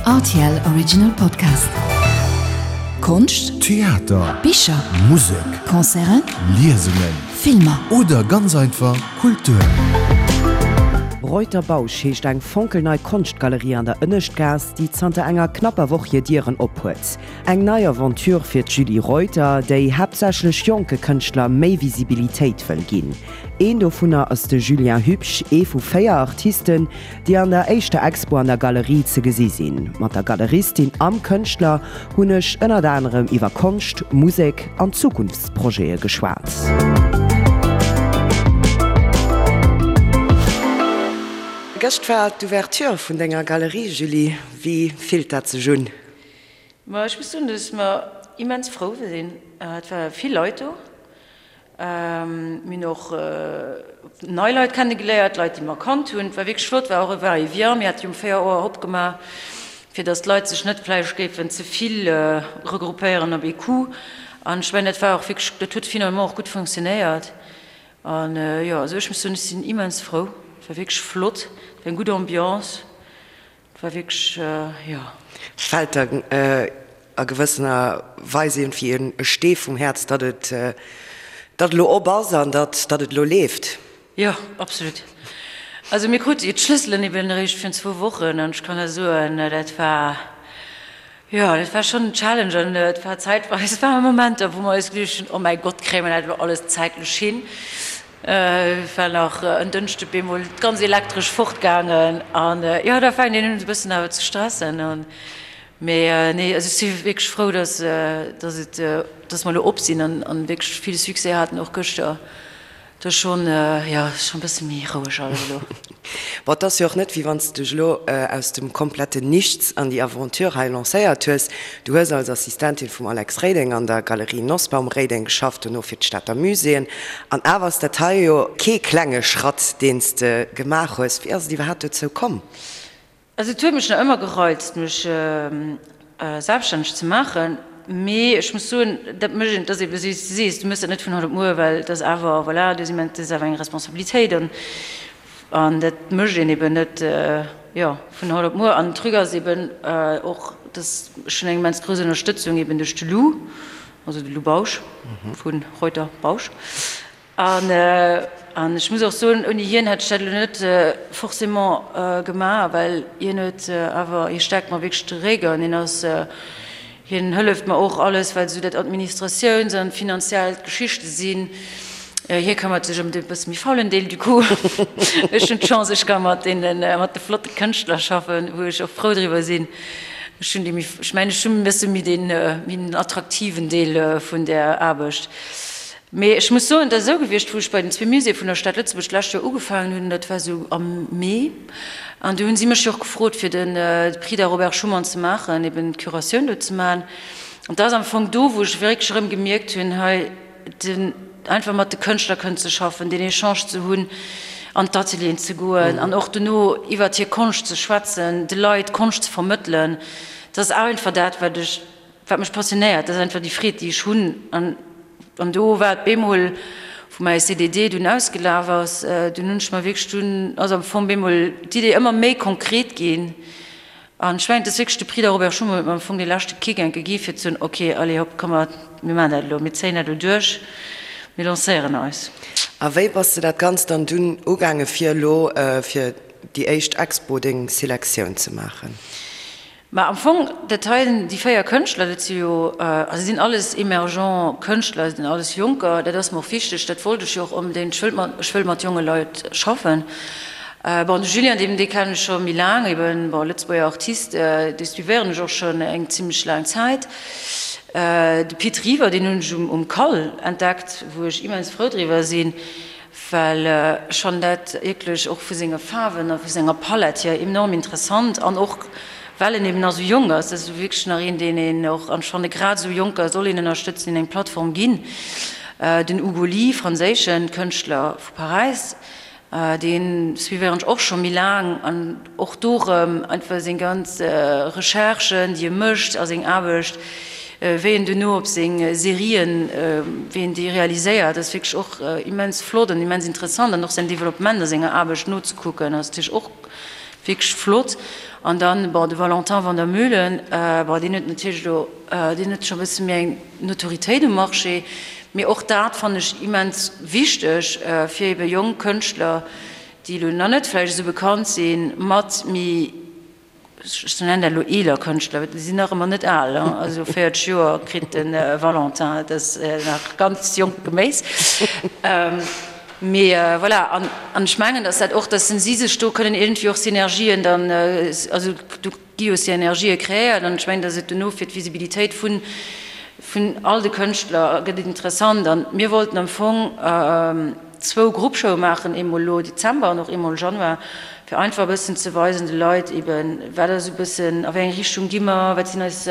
Rtl Original Podcast. Konscht, Theater, Bicher, Musek, Concerten, Liesungen, Filmer. Oder ganz einfach Kultur. Reuter Bausch heescht eng fonkelnei Konschtgalerie an der Ënneschtgaass, déi zanter enger knapper Woch hir Dieren ophuet. Eng nei Aventure fir d'Julie Reuter, déi haaptsächlech jonke Kënschtler méi Visibilitéit wëll ginn. Een dovunner ass de Julien Hübsch, ee vu 4 Artisten, déi an der éischter Expo an der Galerie ze gesi sinn. Mat der Galeristin am Kënschtler hunn ech ënnert anerem iwwer Konscht, Musek an Zukunftsprojete geschwat. Gëscht war d'Ouverture vun denger Galerie, Julie. Wéi fillt dat sech un? Ma ech muss soen, dass mer immens frou sinn. Et ware vill Leit do. Mir hunn och nei Leit kennegeléiert, Leit, déi mer kannt hunn. Et war wierklech flott, war och e Va-et-vient. Mir hate jo um 4 Auer opgemaach, fir datt d'Leit sech net vläicht géifen ze vill regroupéieren op ee Coup. An ech mengen, dat war och wierklech, dat huet finalement och gutt funktionéiert. An jo, also ech muss soen, ech sinn immens frou. Et war wierklech flott, et war eng gutt Ambiance. Et war wierklech, jo. Fält der a gewëssener Weis iergendwéi e Stee vum Häerz, datt et, datt elo op ass an datt, datt et elo leeft? Jo, absolut. Also mir krute jo d'Schlësselen eben eréischt virun zwou Wochen an ech kann der soen, dat war, jo, dat war schonn en Challenge an et war zäitweis, et ware Momenter, wou mer eis geduecht hunn, oh mäi Gott, kréie mer dat elo alles zäitlech hin? War nach en Dënschde bemol d'ganz Elektresch fortgaangen an jo da fänkt een un e bëssen awer ze stressen an mee nee also ech si wierklech frou dass dass et dass mer elo op sinn an an wierklech vill Succès haten och gëschter. Et ass schonn jo schonn e bësse méi roueg alles elo. Bon, et ass jo och net, wéi wann s de dech elo aus dem kompletten Nichts an déi Aventure hei lancéiert hues. Du hues als Assistentin vum Alex Reding an der Galerie Nosbaum-Reding geschafft, dono fir d'Stater Muséeën. An awer ass dat hei jo kee klenge Schratt, deen s de gemaach hues. Wéi ass et iwwerhaapt dozou komm? Also et huet mech nach ëmmer gereizt, mech selbststänneg ze maachen, mee ech muss soen, dat mécht een, et ass eebe wéi s de sees, du méchs dat net vun haut op muer, well et ass awer, voilà, du hues immens, dat ass awer eng Responsabilitéit an an dat mécht een eeben net, jo, vun haut op muer. An den Truc ass eeben och, dass ech hunn eng immens grouss Ënnerstëtzung eeben duerch de Lou, also de Lou Bausch vu Reuter Bausch, An ech muss och soen, ouni hien hätt ech dat elo net forcément gemaach, well hien huet awer, hie stäerkt mer wierklech de Réck an hien ass, hien hëlleft mer och alles, wat esou dat Administratiouns an finanziellt Geschichte sinn. Hie këmmert sech ëm de bësse méi faulen Deel du coup. Ech hunn d'Chance, ech ka mat deene, mat de flotte Kënschtler schaffen, wou ech och frou driwwer sinn. Ech hunn déi méi, ech mengen, ech hunn e bësse méi deen, méi den attraktiven Deel vun där Aarbecht. Mee ech muss soen, et ass esou gewiescht, wou ech bei den zwee Muséeë vun der Stad Lëtzebuerg d'lescht Joer ugefaangen hunn, dat war esou am Mee, an du hunn si mech jo och gefrot, fir de Prix da Robert Schuman ze maachen, eben d'Curatioun do ze maachen. An dat ass am Fong do, wou ech wierklech erëm gemierkt hunn, hei den einfach mat de Kënschtler kënnen ze schaffen, deen Echange ze hunn, an d'Atelieren ze goen an och dono iwwert hir Konscht ze schwätzen, de Leit Konscht ze vermëttelen, dat ass einfach dat, wat ech Wat mech passionéiert, dat ass einfach déi Freed, déi ech hunn. An, an do war et bemol, wou mäi CDD dunn ausgelaf ass, dunn hunn ech mer wierklech, dunn ass am Fong bemol d'Idee ëmmer méi konkret ginn. An ech mengen, et ass wierklech de Prix da Robert Schuman huet mer am Fong dee leschte Kick enke gi fir ze soen, ok, allez hopp, komm mer, mir maachen dat elo, mir zéien dat elo duerch, mir lancéieren eis. A wéi bass de dat Ganzt dann dunn ugaange fir elo fir déi éischt Expo deng Selektioun ze maachen? Mä am Fong, dat hei, déi 4 Kënschtler, dat si jo, also sinn alles emergent Kënschtler, sinn alles Jonker, dat ass mer och wichteg, dat wollt ech jo och onbedéngt, ech wëllt mat, ech wëll mat jonge Leit schaffen. Bon, de Julien, deen, dee kennen ech scho méi laang, eben, bon, Lëtzebuerger Artist, dee suivéieren ech och schonn eng zimlech laang Zäit. De Pit River, deen hunn ech um, um Cal entdeckt, wou ech immens frou driwwer sinn. Well ech fannen dat wierklech och vu senge Faarwen a vu senger Palett hier enorm interessant an och well en eben nach esou jonk ass. Dat ass wierklech nach een, deen een och, an ech fanne grad esou Jonker soll een ënnerstëtzen, hinnen eng Plattform ginn. Den Hugo Ly, franséische Kënschtler vu Paräis, dee suivéieren ech och scho méi laang an och do erëm einfach seng ganz Recherchen, déi e mécht a seng Aarbecht, Wéi en duerno op seng Serien, wéi en déi realiséiert, ass wierklech och immens flott an immens interessant an och säin Developpement a senger Aarbecht nozekucken ass natierlech och. Wierklech flott. An dann, bon, de Valentin Van der Meulen, bon, deen huet natierlech elo, deen huet scho e bësse méi eng Notoritéit um Marché, mee och dat fannen ech immens wichteg, fir ebe jonk Kënschtler, déi elo nach net vläicht esou bekannt sinn, mat méi, ech nennen dat elo eeler Kënschtler, well déi sinn nach ëmmer net al, also 40 Joer kritt de Valentin, dat ass nach ganz jonkt Geméis. Mee voilà, an ech mengen, datt dat och, datt si sech do kënnen iergendwéi och Synergien dann, also do gi jo Synergië kreéiert an ech mengen, datt et dono fir d'Visibilitéit vun, vun all de Kënschtler gëtt et interessant. An mir wollten am Fong zwou Gruppshowe maachen, eemol elo Dezember an och eemol Januar, fir einfach e bëssen ze weisen de Leit eeben, wat ass esou e bëssen, a wéi eng Richtung gi mer, wat sinn eis,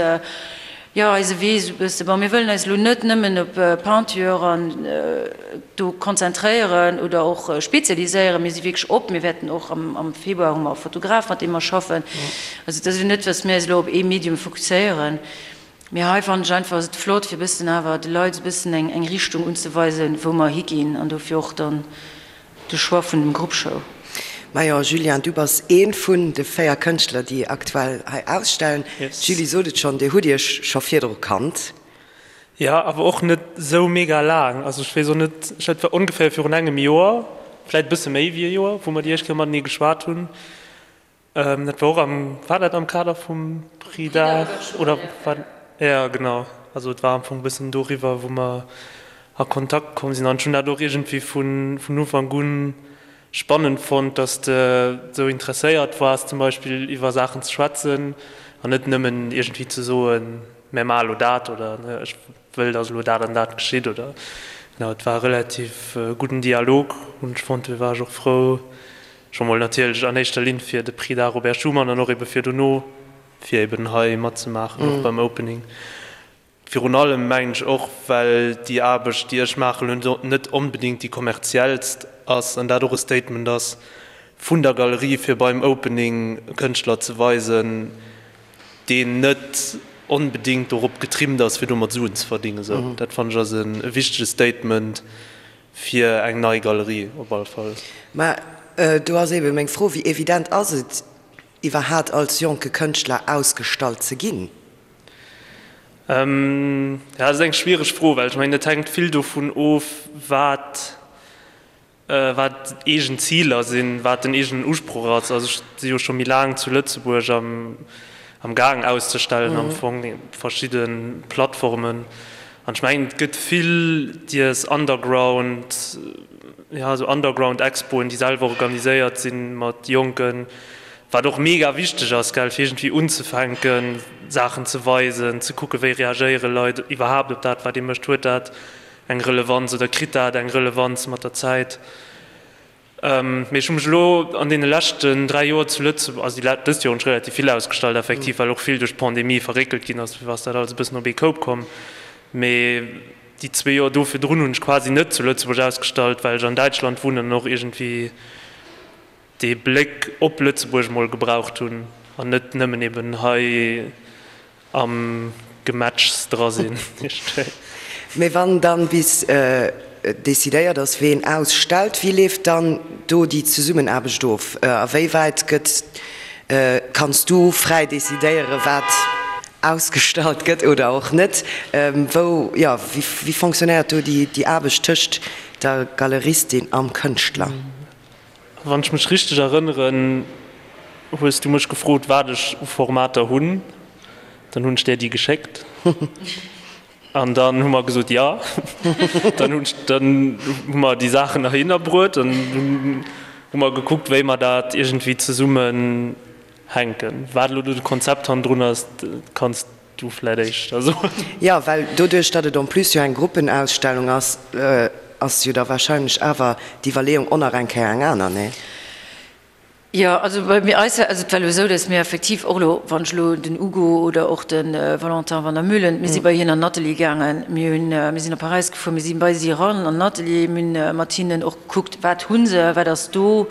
Jo, eise Wee esou bësse. Bon, mir wëllen eis elo net nëmmen op Peinture an do konzentréieren oder och spezialiséieren. Mir si wierklech op. Mir wäerten och am Februar hu mer e Fotograf, mat deem mer schaffen. Also et ass elo net, datt mir eis elo op ee Medium fokusséieren. Mee hei fannen ech einfach, ass et flott, fir e bëssen awer de Leit esou bëssen eng Richtung unzeweisen, wou mer higinn an dofir och dann De Choix vun dem Grupp Show. Majo Julien, du bass ee vun de 4 Kënschtler déi aktuell hei ausstellen. D'Julie sot et schonn, dir hutt iech scho virdru kannt. Jo, awer och net esou mega laang. Also ech weess och net, ech et war ongeféier virun engem Joer, vläit e bësse méi wéi e Joer, wou mer déi éischt Kéier matenee geschwat hunn. Dat war och am, war dat am Kader vum Prix d'Art oder war, jo genau, also et war am Fong e bëssen doriwwer, wou mer a Kontakt komm sinn. An ech hunn dat och iergendwéi vun vun Ufank un spannend fonnt, dass de esou interesséiert waars zum Beispill iwwer Saachen ze schwätzen an net nëmmen iergendwéi ze soen, mär maache lo dat oder ech wëll, dass elo dat an dat geschitt oder, genau, et war e relativ gudden Dialog hunn ech fonnt. Do war ech och frou, Scho mol natierlech an éischter Linn fir de Prix d'Art Robert Schuman an och ebe fir dono, fir eben hei matzemaachen, och beim Opening. Virun allem mengen ech och, well déi Aarbecht, déi ech maachen, elo net onbedéngt déi kommerziellst ass an dat och e Statement ass vun der Galerie, fir beim Opening e Kënschtler ze weisen, deen net onbedéngt dorop getrimmt ass, fir domat Suen ze verdingen. Esou, dat fannen ech ass e wichtege Statement Fir eng nei Galerie op alle Fall. Mä do ass eebe meng Fro, Wéi evident ass et iwwerhaat als jonke Kënschtler ausgestallt ze ginn? Jo, dat ass eng schwiereg Fro, well ech mengen, et hänkt vill dovun of, wat wat eegen Ziler sinn, wat den eegenen Usproch ass. Also ech si jo scho méi laang zu Lëtzebuerg am am Gaang auszestellen am Fong, verschidde Plattformen. An ech mengen, et gëtt vill dies Underground, jo, esou Underground-Expoen, déi selwer organiséiert sinn mat Jonken, wat och mega wichteg ass, gell, fir iergendwéi unzefänken, Saachen ze weisen, ze kucken, wéi reagéiere Leit iwwerhaapt op dat, wat ee mécht, huet dat eng Relevanz oder kritt dat eng Relevanz mat der Zäit. Mee ech hu mech elo an deene leschten 3 Joer zu Lëtzebuerg, also déi dëst Joer hunn ech relativ vill ausgestallt effektiv, well och vill duerch d'Pandemie verréckelt ginn ass, ass dat alles e bëssen op ee Koup komm. Mee déi zwee Joer do virdrun hunn ech quasi net zu Lëtzebuerg ausgestallt, well ech an Däitschland wunnen an och iergendwéi dee Bléck op Lëtzebuerg mol gebraucht hunn an net nëmmen eben hei am Gemetschs dra sinn. Mee wann dann bis decidéiert ass ween ausstellt, wéi leeft dann do déi Zesummenaarbecht of? A wéi wäit gëtt, kanns du fräi decidéieren wat ausgestallt gëtt oder och net? Wou, jo, wéi fonctionnéiert do déi Aarbecht tëscht der Galeristin am Kënschtler? Wann ech mech richteg erënneren, hues du mech gefrot, wat ech u Formater hunn. Dann hunn ech där déi geschéckt. An dann hu mer gesot, jo. Dann hunn ech, dann hu mer déi Saachen heihinner bruet an dunn hu mer gekuckt, wéi mer dat iergendwéi zesummen hänken. Wat elo do de Konzept hannendrun ass, kanns Du vläit éischter soen. Jo, well doduerch, datt et en plus jo eng Gruppenausstellung ass, ass jo da wahrscheinlech awer d'Iwwerleeung och nach eng Kéier eng aner, nee? Jo, also bei mir eis, also et war elo esou, datt mir effektiv och elo, wann ech elo den Ugo oder och de Valentin Van der Meulen, mir si bei hien an den Atelier gaangen, mir hunn, mir sinn op Paräis gefuer, mir si bei si eran an den Atelier, mir hunn mat hinnen och gekuckt, wat hu se, wat ass do,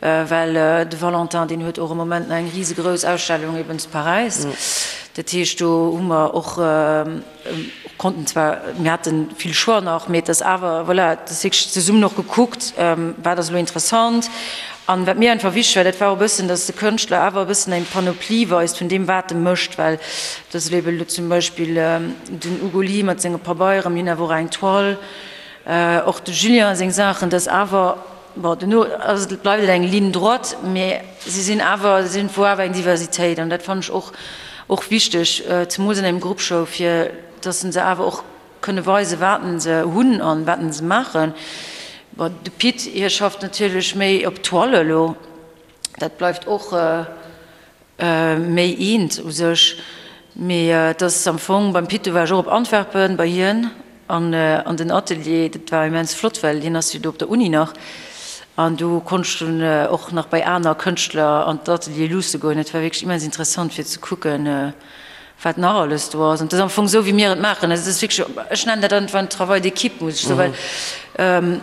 Well de Valentin, deen huet och am Moment nach eng risegrouss Ausstellung eben zu Paräis. Dat heescht, do hu mer och, konnten zwar, mir hate vill Choix nach, mee et ass awer, voilà, et ass wierklech zesummen och gekuckt, wat ass elo interessant. An wat mir einfach wichteg war, dat war och e bëssen, dass de Kënschtler awer e bëssen eng Panoplie weist vun deem, wat e mécht, well dat ass ebe lo zum Beispill den Ugo Ly mat senge Pabeieren, mir hunn awer och eng Toile, och de Julien seng Saachen, dass awer, bon, duerno ass et, bleift et eng Ligne droite, mä si sinn awer, si hunn wou awer eng Diversitéit an dat fannen ech och, och wichteg, zemools an engem Gruppshow, fir dass se awer och Kënne weisen, wat se hunn an wat se maachen. Bon, de Pit, hie schafft natierlech méi op Toile elo. Dat bleift och méi eent u sech. Mee et ass am Fong, beim Pit, do war ech och op Antwerpen bei hien an an den Atelier. Dat war immens flott, well hien ass jo do op der Uni nach. An do konnt ech dunn och nach bei aner Kënschtler an d'Ateliere luusse goen. Dat war wierklech immens interessant fir ze kucken, wat nach alles do ass. An et ass am Fong esou, wéi mir et maachen. Also et ass wierklech, ech nennen dat einfach en Travail d'équipe, muss ech soen, well,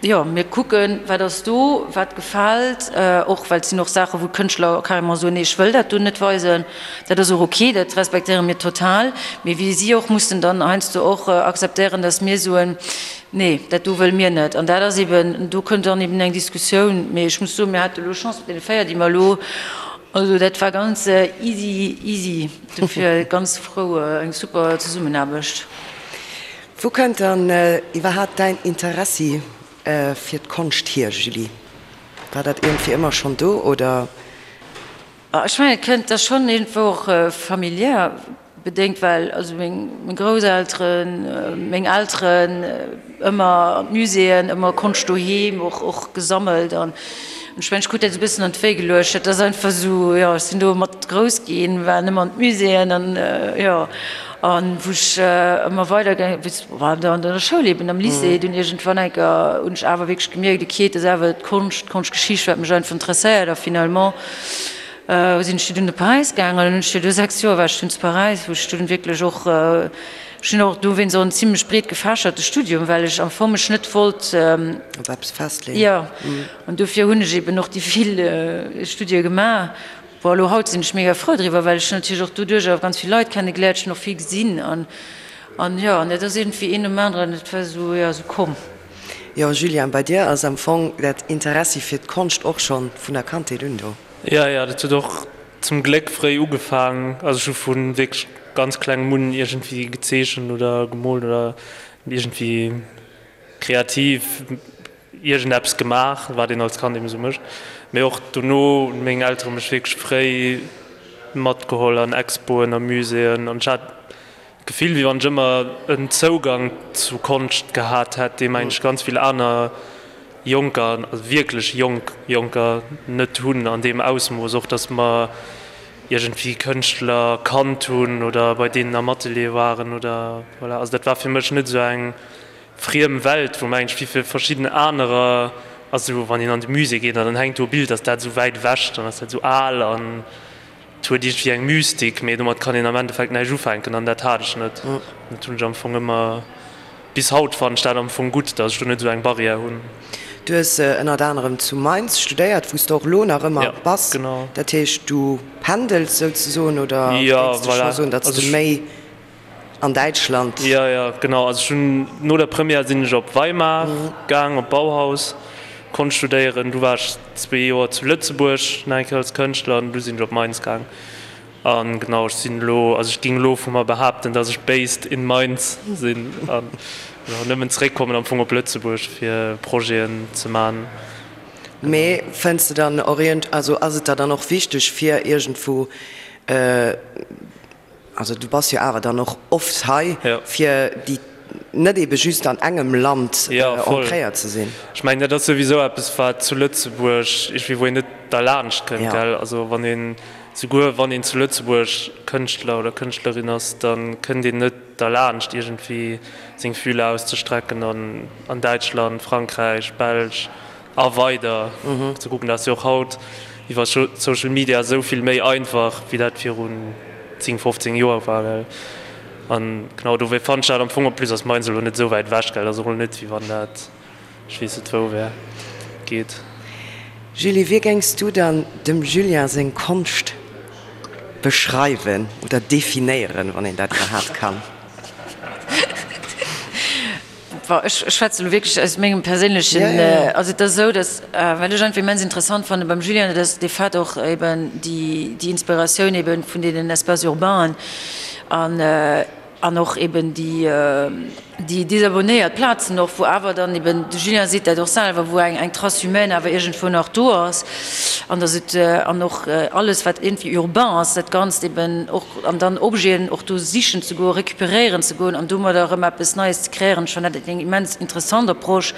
jo, mir kucken, wat ass do, wat gefält, och well et sinn och Saachen, wou d'Kënschtler carrément soen, nee, ech wëll dat do net weisen. Dat ass och ok, dat respektéiere mir total. Mee wéi si och mussen dann heiansdo och akzeptéieren, datt mir soen, nee, dat do wëlle mir net. An dat ass eben, do kënnt dann eben eng Diskussioun. Mee ech muss soen, mir hate elo Chance mat deene 4, déi mer elo Also dat war ganz easy easy, dofir ganz frou, eng super Zesummenaarbecht. Wou kënnt dann iwwerhaapt däin Interessi fir d'Konscht hier, Julie? War dat iergendwéi ëmmer schonn do, oder? Ech mengen et kënnt da schonn iergendwou och familiär. Bedéngt, well also meng Grousselteren, meng Elteren ëmmer an d'Muséeën, ëmmer Konscht doheem och och gesammelt an ech mengen, ech krut dat esou e bëssen an d'Wéi geluecht. Dat ass einfach esou, jo, ech sinn do mat grouss ginn, war nëmmen an d'Muséeën an jo, an wou ech ëmmer weider gaange war an der Schoul eben, am Lycée, dunn iergendwann eng Kéier hunn ech awer wierklech gemierkt, okay, et ass awer d'Konscht, d'Konschtgeschicht, wat mech einfach interesséiert a finalement Sinn ech dunn op Paräis gaangen an hunn ech do 6 Joer war ech dunn zu Paräis, wou ech dunn wierklech och, ech hunn och dowéinst och en zimlech breet gefächerte Studium, well ech am Fong mech net wollt op eppes festleeën. Jo, an dofir hunn ech eben och déi vill Studie gemaach. Bon, elo haut sinn ech mega frou driwwer, well ech hunn natierlech och doduerch awer ganz vill Leit kenne geléiert, ech hunn och vill gesinn an an jo, an dat ass iergendwéi een nom aneren, et war esou, jo, esou komm. Jo, Julien, bei dir ass am Fong dat Interessi fir d'Konscht och schonn vun der Kandheet un do. Jo, jo, dat huet och zum Gléck fréi ugefaang. Also ech hu vu wierklech ganz klengem un iergendwéi gezeechent oder gemoolt oder iergendwéi kreativ iergendeppes gemaach, wat een als Kand eben esou mécht. Mee och dono hunn meng Eltere mech wierklech fréi matgeholl an Expoen a Muséeën an ech hat D'Gefill, wéi wann ech ëmmer en Zougang zu Konscht gehat hätt, dee mengen ech ganz vill aner Jonker, also wierklech jonk Jonker net hunn an deem Ausmooss. Och datt mer iergendwéi Kënschtler kannt hunn oder bei deenen am Atelier waren oder voilà. Also dat war fir mech net esou eng friem Welt, wou mengen ech wéi fir verschidden anerer, also wann een an de Musée geet an dann hänkt do e Bild, ass dat esou wäit ewech, dann ass dat esou al an Et huet iergendwéi eng Mystik, mee domat kann een am Endeffekt näischt ufänken an dat hat ech net. Dat hunn ech am Fong ëmmer, bis haut fannen ech dat am Fong gutt, datt ech do net esou eng Barrière hunn. Du hues ënnert anerem zu Mainz studéiert, wou s de och elo nach ëmmer bass. Genau. Dat heescht, du pendels souzesoen oder géings de scho soen, datt s de méi An Däitschland? Jo, jo, genau. Also ech hunn no der Première sinn ech op Weimar gaang, op Bauhaus, Konscht studéieren. Du war ech zwee Joer zu Lëtzebuerg nach eng Kéier als Kënschtler an du sinn ech op Mainz gaang. An genau, ech sinn elo, also ech géing elo vu mer behaapten, datt ech based in Mainz sinn an genau nëmmen zeréckkommen am Fong op Lëtzebuerg fir Projeten ze man. Mee fënns de dann och iergend, also ass et der dann och wichteg fir iergendwou, Also du bass jo awer dann och oft hei, fir déi net ebe just an engem Land ancréiert ze sinn. Ech mengen, dat ass souwisou eppes, wat zu Lëtzebuerg iergendwéi, wou een net derlaanscht kënnt, gell. Also wann een, souguer wann een zu Lëtzebuerg Kënschtler oder Kënschtlerin ass, da kënnt een net derlaanscht, iergendwéi seng Fühler auszestrecken an an Däitschland, Frankräich, Belsch. A weider ze kucken. Dat ass jo och haut iwwer Social Media esou vill méi einfach, wéi dat virun 10, 15 Joer war, gell. An genau dofir fannen ech dat am Fong, en plus ass Mainz elo net esou wäit ewech, gell, dat ass och elo net, wéi wann dat ech weess net wou wär. Geet. Julie, wéi géings du dann dem Julien seng Konscht beschreiwen oder definéieren, wann een dat iwwerhaapt kann? Ech schwätze elo wierklech aus mengem perséinlechen, also et ass esou, datt, wat ech einfach immens interessant fanne beim Julien, dat ass de Fait och eben déi Inspiratioun eben vun deenen Espaces urbainen an an och eben déi déi desabonnéiert Plazen och, wou awer dann eben, de Julien seet dat och selwer, wou eng eng Trace humaine awer iergendwou nach do ass an datt et an och alles wat iergendwéi urbain ass, dat Ganzt eben och an dann Objeten och do sichen ze goen, récupéréieren ze goen an domadder erëm eppes Neies ze kreéieren. Ech fannen dat eng immens interessant Approche.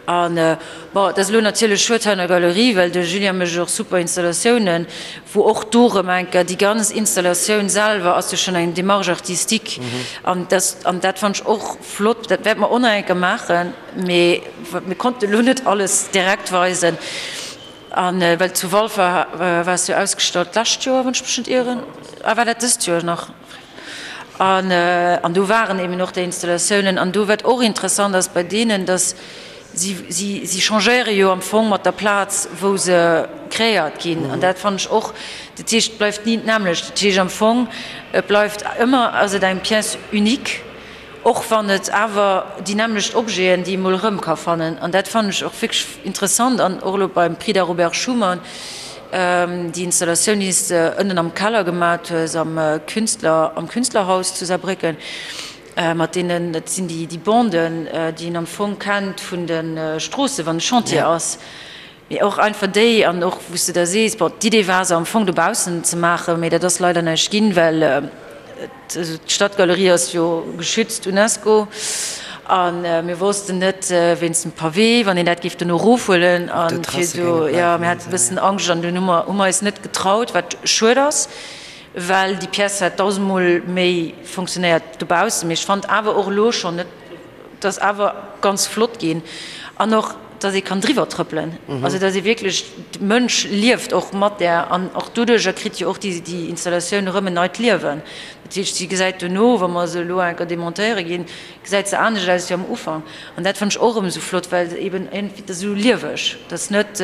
An, bon, et ass elo natierlech schued hei an der Galerie, well de Julien mécht och super Installatiounen, wou och do erëm eng Kéier déi ganz Installatioun selwer ass jo schonn eng Démarche artistique. An dat, an dat fannen ech och flott. Dat wäerte mer och nach eng Kéier maachen, mee mir konnten elo net alles direkt weisen. A well zu Walfer war es jo ausgestallt d'lescht Joer, wann ech mech net ieren, ah war dat dëst Joer nach? An an do waren eben och déi Installatiounen. An do wat och interessant ass bei deenen, datt si si si changéiere jo am Fong mat der Plaz wou se kreéiert ginn. An dat fannen ech och, dat heescht et bleift ni d'nämmlecht. Dat heescht am Fong et bleift ëmmer ass et eng Pièce unique. Och wann et awer déi nämmlecht Objeten, déi ee mol erëm ka fannen. An dat fannen ech och wierklech interessant. An och elo beim Prix d'Art Robert Schuman, déi Installatioun, déi s de ënnen am Keller gemat hues, am Künstler, am Künstlerhaus zu Saarbrécken, mat deenen, dat sinn déi Banden, déi een am Fong kennt vun de Stroossen, wann e Chantier ass. Mee och einfach déi, an och wou s de da sees, bon, d'Idee war se am Fong dobaussen ze maachen, mee dat ass leider näischt ginn, well d'Stadgalerie ass jo geschützt, Unesco, a mir wossten net wéinst dem Pavé, wann een dat géif dono erofhuelen a fir do, jo, mir hate e bëssen Angscht an dunn hu mer hu mer eis net getraut, wat schued ass, well déi Pièce hätt dausendmol méi fonctionnéiert dobaussen. Mee ech fand awer och elo schonn net, Et ass awer ganz flott ginn an och, dass ee kann driwwer trëppelen, also dass ee wierklech, de Mënsch lieft och mat där an och doduerjer kritt jo och déi Installatioun erëm en neit Liewen. Dat heescht, si gesäit dono, wa mer se elo eng Kéier demontéiere ginn, gesäit se anescht aus wéi am Ufank an dat fannen ech och erëm esou flott, well se eben iergendwéi, et ass esou lieweg, et ass net,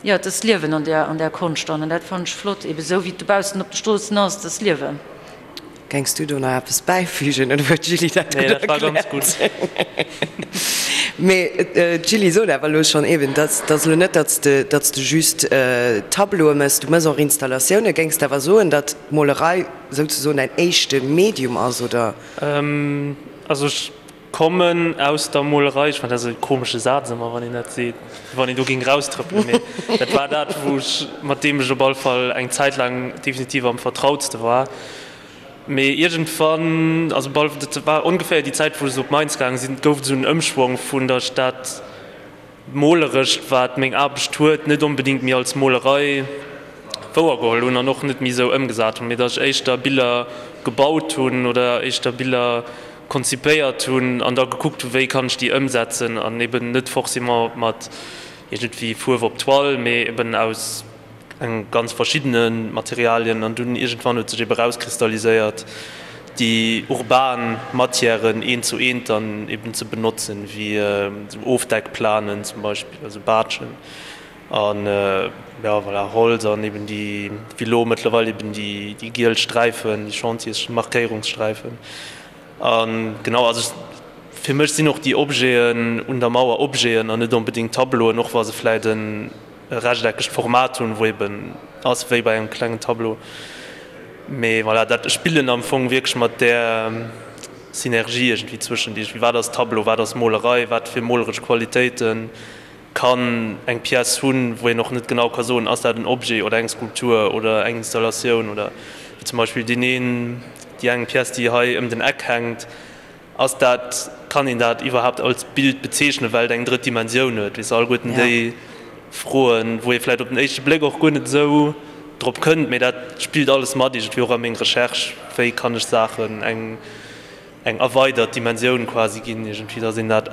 jo, et ass Liewen an där, an där Konscht dann an dat fannen ech flott, eben esou wéi et dobaussen op de Stroossen ass, et ass Liewen. Gengs du do nach eppes bäifügen oder huet d'Julie dat gutt erkläert? Nee, dat war ganz gutt. Mee d'Julie sot awer elo schonn eben, dass dass elo net, datt s de datt s de just Tableaue méchs, du méchs och Installatiounen. Géings de awer soen, datt d'Molerei souzesoen däin éischte Medium ass, oder? Also ech Kommen aus der Molerei, ech fannen dat esou e komesche Saz ëmmer wann een dat seet, wéi wann een do géing raustrëppelen, mee dat war dat wou ech, mat deem ech op all Fall eng Zäit laang definitiv am vertrautste war. Mee iergendwann, also bal, dat war ongeféier déi Zäit wou ech esou op Mainz gaange sinn, gouf et esou en Ëmschwong vun datt ech dat Molerescht, wat meng Aarbecht huet, net onbedéngt méi als Molerei wouergeholl hunn an och net méi esou ëmgesat hunn, mee datt ech éischter Biller gebaut hunn oder éischter Biller konzipéiert hunn an da gekuckt hunn, wéi kann ech déi ëmsetzen an eben net forcément mat iergendwéi Fuerf op Toile, mee eben aus eng ganz verschiddene Materialien an dunn iergendwann huet sech ebe rauskristalliséiert, déi urban Matièren eent zu eent dann eben ze benotzen, wéi esou Ofdeckplanen zum Beispill, also Baatschen an jo voilà, Holz an eben déi, wéi elo mëttlerweil eben déi giel Sträifen, déi Chantiers-Markéierungssträifen. A genau, also fir mech sinn och déi Objeten un der Mauer Objeten an net onbedéngt Tableauen, och wa se vläit en e rechteckegt Format hunn, wou eben ass wéi bei engem klengen Tableau. Mee voilà, dat, ech spillen am Fong wierklech mat där Synergie iergendwéi zwëschent iergendwéi, wat ass Tableau, wat ass Molerei, wat fir moleresch Qualitéite kann eng Pièce hunn, wou een och net genau ka soen, ass dat en Objet oder eng Skulptur oder eng Installatioun oder wéi zum Beispill deen een, déi eng Pièce, déi hei ëm den Eck hänkt. Ass dat, kann een dat iwwerhaapt als Bild bezeechnen, well et eng drëtt Dimensioun huet? Weess de, alleguerten déi Froen, wou ee vläicht op den éischte Bléck och guer net esou drop kënnt, mee dat spillt alles mat iergendwéi och a meng Recherche, wéi kann ech Saachen eng eng erweidert Dimensioun quasi ginn, iergendwéi, datt een dat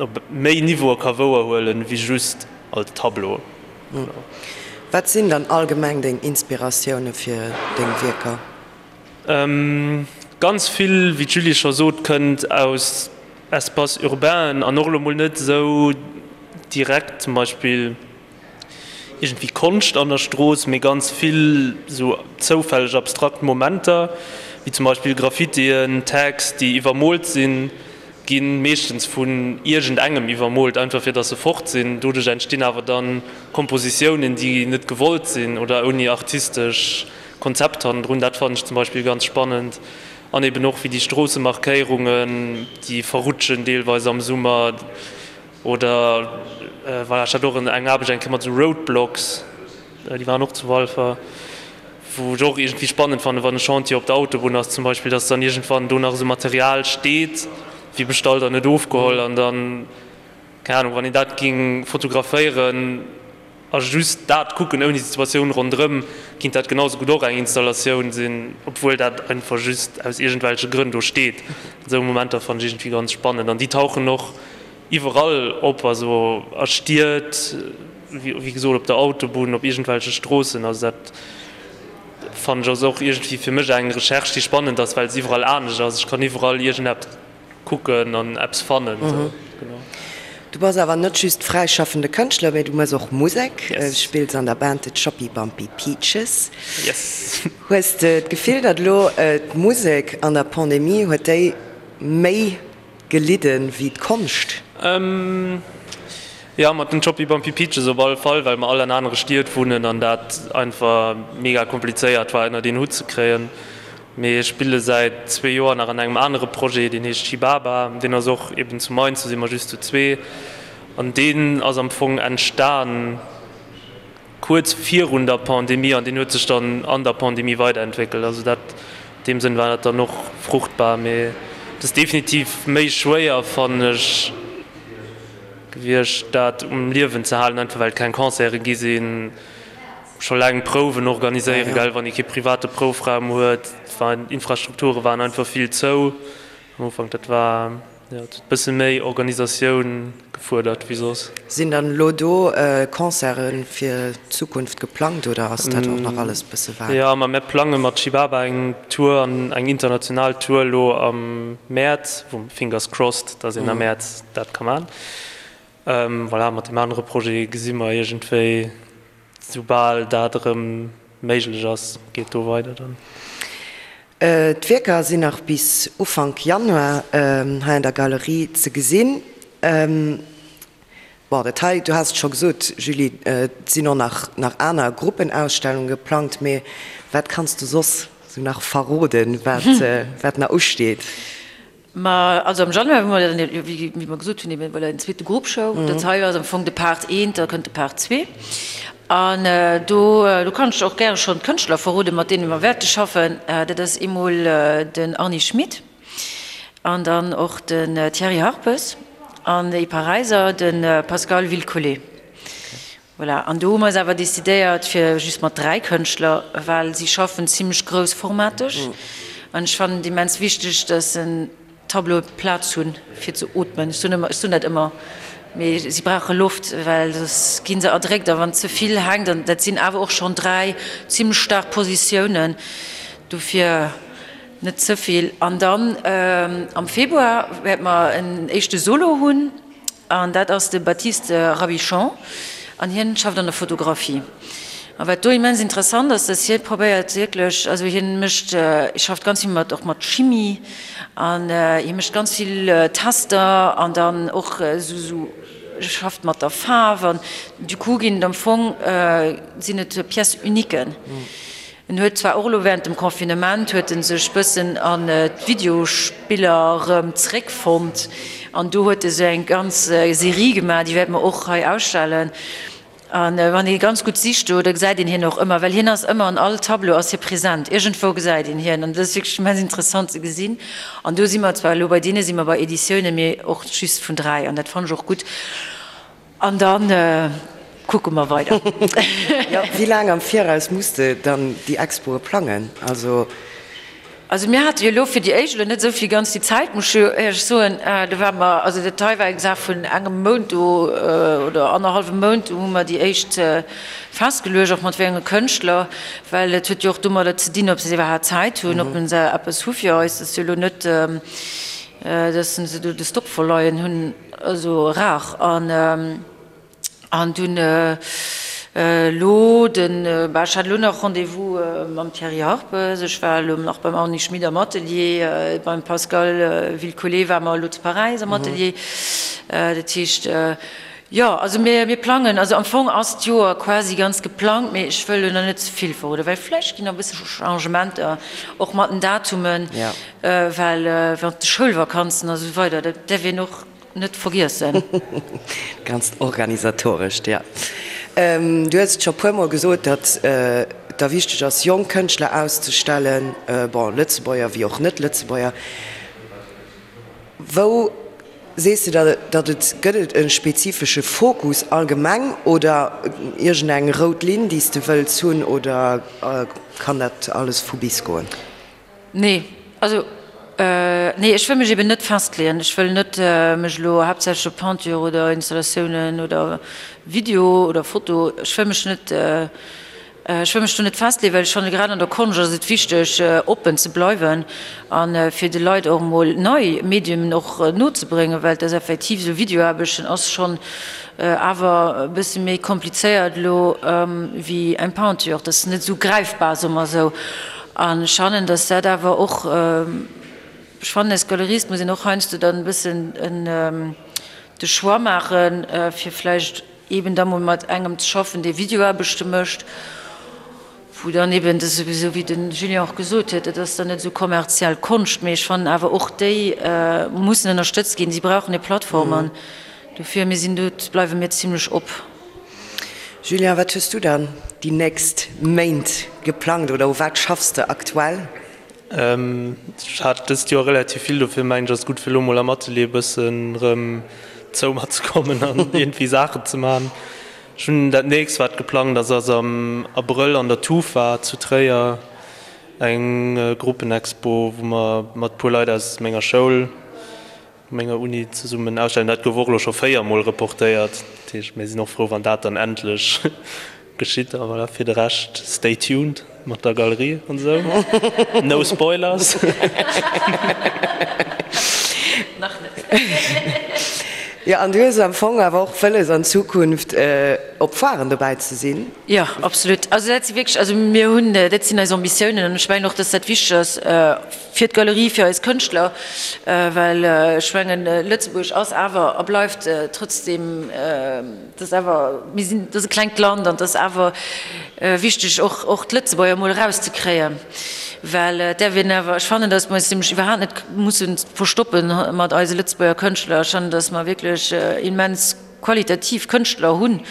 op méi Niveaue ka wouerhuelen, wéi just als Tableau. Wat sinn dann allgemeng deng Inspiratioune fir deng Wierker? Ganz vill, wéi d'Julie scho sot, kënnt aus Espaces urbainen an och elo mol net esou direkt zum Beispill iergendwéi Konscht an der Strooss, mee ganz vill esou zoufälleg abstrakt Momenter, wéi zum Beispill Graffitien, Tags, déi iwwermoolt sinn. gi meeschtens vun iergendengem iwwermoolt, einfach fir datt se fort sinn. Doduerch entstinn awer dann Kompositiounen, déi net gewollt sinn oder ouni artistesch Konzept hannendrun. Dat fannen ech zum Beispill ganz spannend. An eben och wéi déi Stroossemarkéierungen, déi verrutschen deelweis am Summer. Oder voilà, ech hat och eng Aarbecht eng Kéier mat esou Roadblocks, déi waren och zu Walfer, wou ech och iergendwéi spannend fannen, wann e Chantier op der Autobunn ass zum Beispill, dass dann iergendwann do nach esou Material steet, wéi bestallt an net ofgeholl an dann, keng Ahnung, wann een dat géing fotograféieren a just dat kucken ouni d'Situatioun ronderëm, kinnt dat genau sou gutt och eng Installatioun sinn, obwuel dat einfach just aus iergendwelche Grënn do steet. Esou Momenter fannen ech iergendwéi ganz spannend an déi tauchen och iwwerall op, also a Stied, wéi gesot op der Autobunn, op iergendwelche Stroossen. Also dat fannen ech ass och iergendwéi fir mech eng Recherche, déi spannend ass, well se iwwerall anescht ass. Ech kann iwwerall iergendeppes kucken an eppes fannen. Genau. Du bass awer net just fräischaffende Kënschtler, mee du mëss och Musek. Du spills an der Band The Choppy Bumpy Peaches. Yes. Hues de d'Gefill, datt elo d'Musek an der Pandemie, huet déi méi gelidden wéi d'Konscht? Jo, mat den Choppy Bumpy Peaches op alle Fall, well mer all an anere Stied wunnen an dat einfach mega komplizéiert war ënnert een Hutt ze kréien. Mee ech spille säit zwee Joer nach an engem anere Projet, deen heescht Chibaba. Deen ass och eben zu Mainz, do si mer just zu zwee. An deen ass am Fong entstan kuerz virun der Pandemie an deen huet sech dann an der Pandemie weiderentwéckelt. Also dat, an deem Sënn war dat dann och fruchtbar. Mee et ass definitiv méi schwéier, fannen ech, gewiescht, dat um Liewen ze halen, einfach well et keng Concerte gi sinn. Scho laang Prouwen organiséieren, gell, wann ee kee private Proufraum huet. D'Infrastrukture waren einfach vill zou am Ufank. Dat war, jo, et huet e bësse méi Organisatioun gefuerdert wéi soss. Sinn dann elo do Concerte fir d'Zukunft geplangt oder ass dat och nach alles e bësse vag? Jo, ma mir plange mat Chibaba eng Tour an eng international Tour elo am Mäerz, wou, fingers crossed, dass een am Mäerz dat ka man. Voilà, mat deem anere Projet gesi mer iergendwéi. Soubal dat erëm méiglech ass, geet do weider dann. D'Wierker sinn nach bis Ufank Januar hei an der Galerie ze gesinn. Bon, dat hei, du has et scho gesot, Julie, et sinn och nach nach aner Gruppenausstellunge geplangt, mee wat kanns du soss sou nach verroden, wat wat nach usteet? Ma also am Januar hu mer dann, wéi mer gesot hunn, eben voilà en zweete Group Show. Dat hei ass am Fong de Part eent, da kënnt de Part zwee. An do, do kann ech och gäre schonn d'Kënschtler verroden, mat deene mer wäerte schaffen. Dat ass eemol den Arny Schmit an dann och den Thierry Harpes an ee Paräiser, de Pascal Wilcollet. Voilà, an do hu mer eis awer decidéiert fir just mat 3 Kënschtler, well si schaffen zimlech groussformateg an ech fannen et immens wichteg, dass en Tableaue Plaz hunn fir ze ootmen. Ech soen ëmmer, ech soen dat ëmmer, mee si brauche Loft, well soss gi se erdréckt a wann ze vill hänkt, an dat sinn awer och schonn 3 zimlech staark Positiounen, dofir net ze vill. An dann am Februar wäerte mer en éischte Solo hunn. An dat ass de Baptiste Rabichon an hien schafft an der Fotografie. A wat do immens interessant ass, dass hie probéiert wierklech, also hien mécht, schafft ganz vill mat och mat Chimie an hie mécht ganz vill Tester an dann och esou esou schafft mat der Faarf an du coup ginn et am Fong sinn et Pièces uniquen. En huet zwar och elo während dem Confinement huet en sech bëssen an d'Videospiller erëm zréckfonnt an do huet e sou eng ganz Serie gemaach, déi wäerte mer och hei ausstellen. An wann ee ganz gutt sicht do, da gesäit een hien och ëmmer, well hien ass ëmmer an all Tableau ass hie present, iergendwou gesäit een hien an dat ass wierklech immens interessant ze gesinn. An do si mer zwar elo bei deene si mer bei Editiounen, mee och just vun 3 an dat fannen ech och gutt. An dann kucke mer weider. Jo, wéi laang am Viraus muss de dann déi Expoe plangen? Also. Also mir hate jo elo fir déi éischt elo net esou vill ganz déi Zäit, muss ech jo éierlech soen. Do ware mer, also dat hei war eng Saach vun engem Mount do oder annerhallwem Mount, do hu mer déi éischt festgeluecht, och mat wéi enge Kënschtler, well et huet jo och domadder ze dinn, ob se iwwerhaapt Zäit hunn, ob se eppes hu fir eis. Dat ass jo elo net, dass se do de Stock verleien hunn. Also rar. An an dunn. Elo den, bah ech hat elo nach Rendez-vous mam Thierry Harpes, ech war elo nach beim Arny Schmit am Atelier, beim Pascal Vilcolé ware mer elo zu Paräis am Atelier. Dat heescht, jo, also mir, mir plangen, also am Fong ass d'Joer quasi ganz geplangt, mee ech wëll elo nach net ze vill verroden, well vläicht ginn nach e bësse Changementer, och mat den Datumen, well während de Schoulvakanzen a sou weider, dat däerf een och Net vergiessen. Ganzt Organisatorescht, jo. Du hues et scho puermol gesot, datt et der wichteg ass, jonk Kënschtler auszestellen, bon, Lëtzebuerger wéi och Net-Lëtzebuerger. Wou sees de da, datt et, gëtt et e spezifesche Fokus allgemeng oder iergendeng rout Linn, déi s de wëlls hunn, oder kann dat alles vu bis goen? Nee, also nee, ech wëll mech eben net festleeën. Ech wëll net mech elo haaptsächlech op Peinture oder Installatiounen oder Video oder Foto, ech wëll mech net, ech wëll mech do net festleeën, well ech fanne grad an der Konscht ass et wichteg oppen ze bleiwen a fir de Leit och emol nei Mediumen och nozebréngen, well et ass effektiv esou, Videoaarbechten ass schonn awer e bësse méi komplizéiert elo wéi eng Peinture, dat ass net esou gräifbar, soe mer esou. An ech fannen, dass dat awer och, ech fannen als Galerist muss een och heiansdo dann e bëssen de Choix maachen, fir vläicht eeben da mol mat engem ze schaffen, dee Videoaarbechte mécht, wou dann eeben, dat ass esou wéi de Julien och gesot huet, dat ass dann net esou kommerziell Konscht, mee ech fannen awer och déi mussen ënnerstëtzt ginn, si brauchen hir Plattform an dofir, mir sinn do, bleiwe mir zimlech op. Julien, wat hues du dann déi nächst Méint geplangt oder u wat schaffs de aktuell? Ech hat dëst Joer relativ vill, dofir mengen ech ass et gutt fir elo mol am Atelier e bëssen erëm zou mat ze kommen an iergendwéi Saachen ze man. Ech hunn dat nächst wat geplangt ass, ass am Abrëll an der Tufa zu Tréier eng Gruppenexpo wou mer mat puer Leit aus menger Schoul, menger Uni zesummen ausstellen. Dat gouf och elo scho 4 mol reportéiert, dat heescht mir sinn och frou wann dat dann endlech geschitt. A voilà, fir de Rescht stay tuned mat der Galerie an esou. No spoilers. Nach net. Jo, an du hues am Fong awer och wëlles an Zukunft op Foiren dobäi ze sinn? Jo, absolut. Also dat si wierklech, also mir hunn, dat sinn eis Ambitiounen an ech mengen och, dass dat wichteg ass, Fir d'Galerie, fir eis Kënschtler, well ech mengen, Lëtzebuerg ass awer a bleift trotzdem, et ass awer, mir sinn, et ass e klengt Land an et ass awer wichteg och, och d'Lëtzebuerger emol erauszekréien, well et däerf een awer, ech fannen, datt mer eis nämlech iwwerhaapt net musse verstoppe mat eise Lëtzebuerger Kënschtler. Ech fannen, datt mer wierklech immens qualitativ Kënschtler hunn,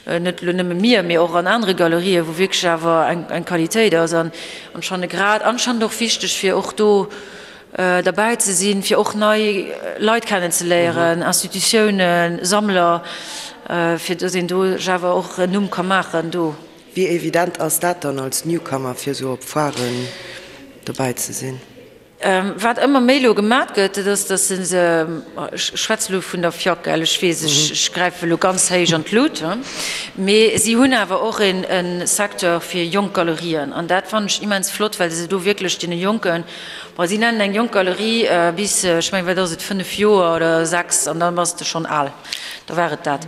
net elo nëmme mir, mee och an anere Galerien, wou wierklech awer eng Qualitéit ass an ech fanne grad anscheinend och wichteg, fir och do derbäi ze sinn, fir och nei Leit kennenzeléieren, Institutiounen, Sammler, fir datt een do sech awer och en Numm ka maachen do. Wéi evident ass dat dann als Newcomer, fir esou op Foiren dobäi ze sinn? Wat ëmmer méi elo gemat gëtt, dat ass, datt se se, ech schwätze elo vun der FIAC, gell, ech weess, ech gräife elo ganz héich an d'Lut, mee si hunn awer och e Secteur fir jonk Galerien an dat fannen ech immens flott, well se do wierklech deene Jonken, bon, si nennen eng jonk Galerie bis, ech mengen, wat ass et, 5 Joer oder 6 an da bass de schonn al, da war et dat.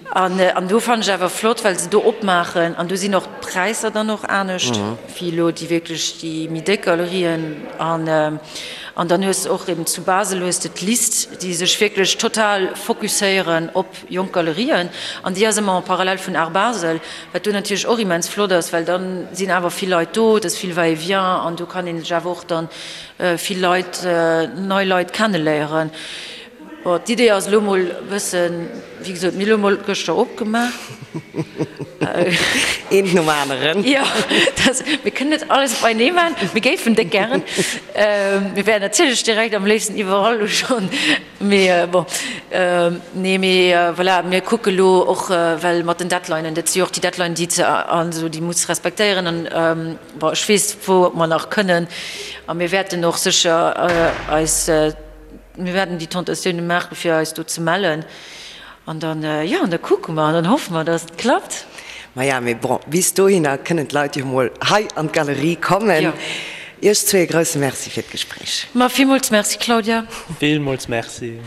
An do fannen ech awer flott, well se do opmaachen an do sinn och d'Präisser dann och anescht wéi elo déi wierklech déi méi déck Galerien. An an dann hues de och eben zu Basel hues de d'List, déi sech wierklech total fokusséieren op jonk Galerien an déi ass ëmmer en parallèle vun Art Basel, wat do natierlech och immens flott ass, well dann sinn awer vill Leit do, et ass vill Va-et-vient an do kann ee sech awer och dann vill Leit, nei Leit kenneléieren. Bon, d'Idee ass elo mol e bëssen, wéi gesot, mir hu elo mol gëschter opgemaach. Eent nom aneren. Jo, dat, mir kënnen net alles op einee maachen, mir géifen déck gären. Mir wären natierlech direkt am léifsten iwwerall elo schonn, mee bon. Nee, mee voilà, mir kucke elo och, well mat den Deadlinen, dat si jo och déi Deadlinen, déi ze, also déi muss respektéieren an bon, ech weess, wou mer nach kënnen a mir wäerten och sécher eis, Mir wäerten déi Tentatioune maachen, fir eis do ze mellen. An dann, jo, an da kucke mer an dann hoffe mer, dass et klappt. Maja, mee bon, bis dohinner kënnen d'Leit jo mol hei an d'Galerie kommen. Jo. Iech zwee e grousse Merci fir d'Gespréich. Ma villmools Merci, Claudia. Villmools Merci.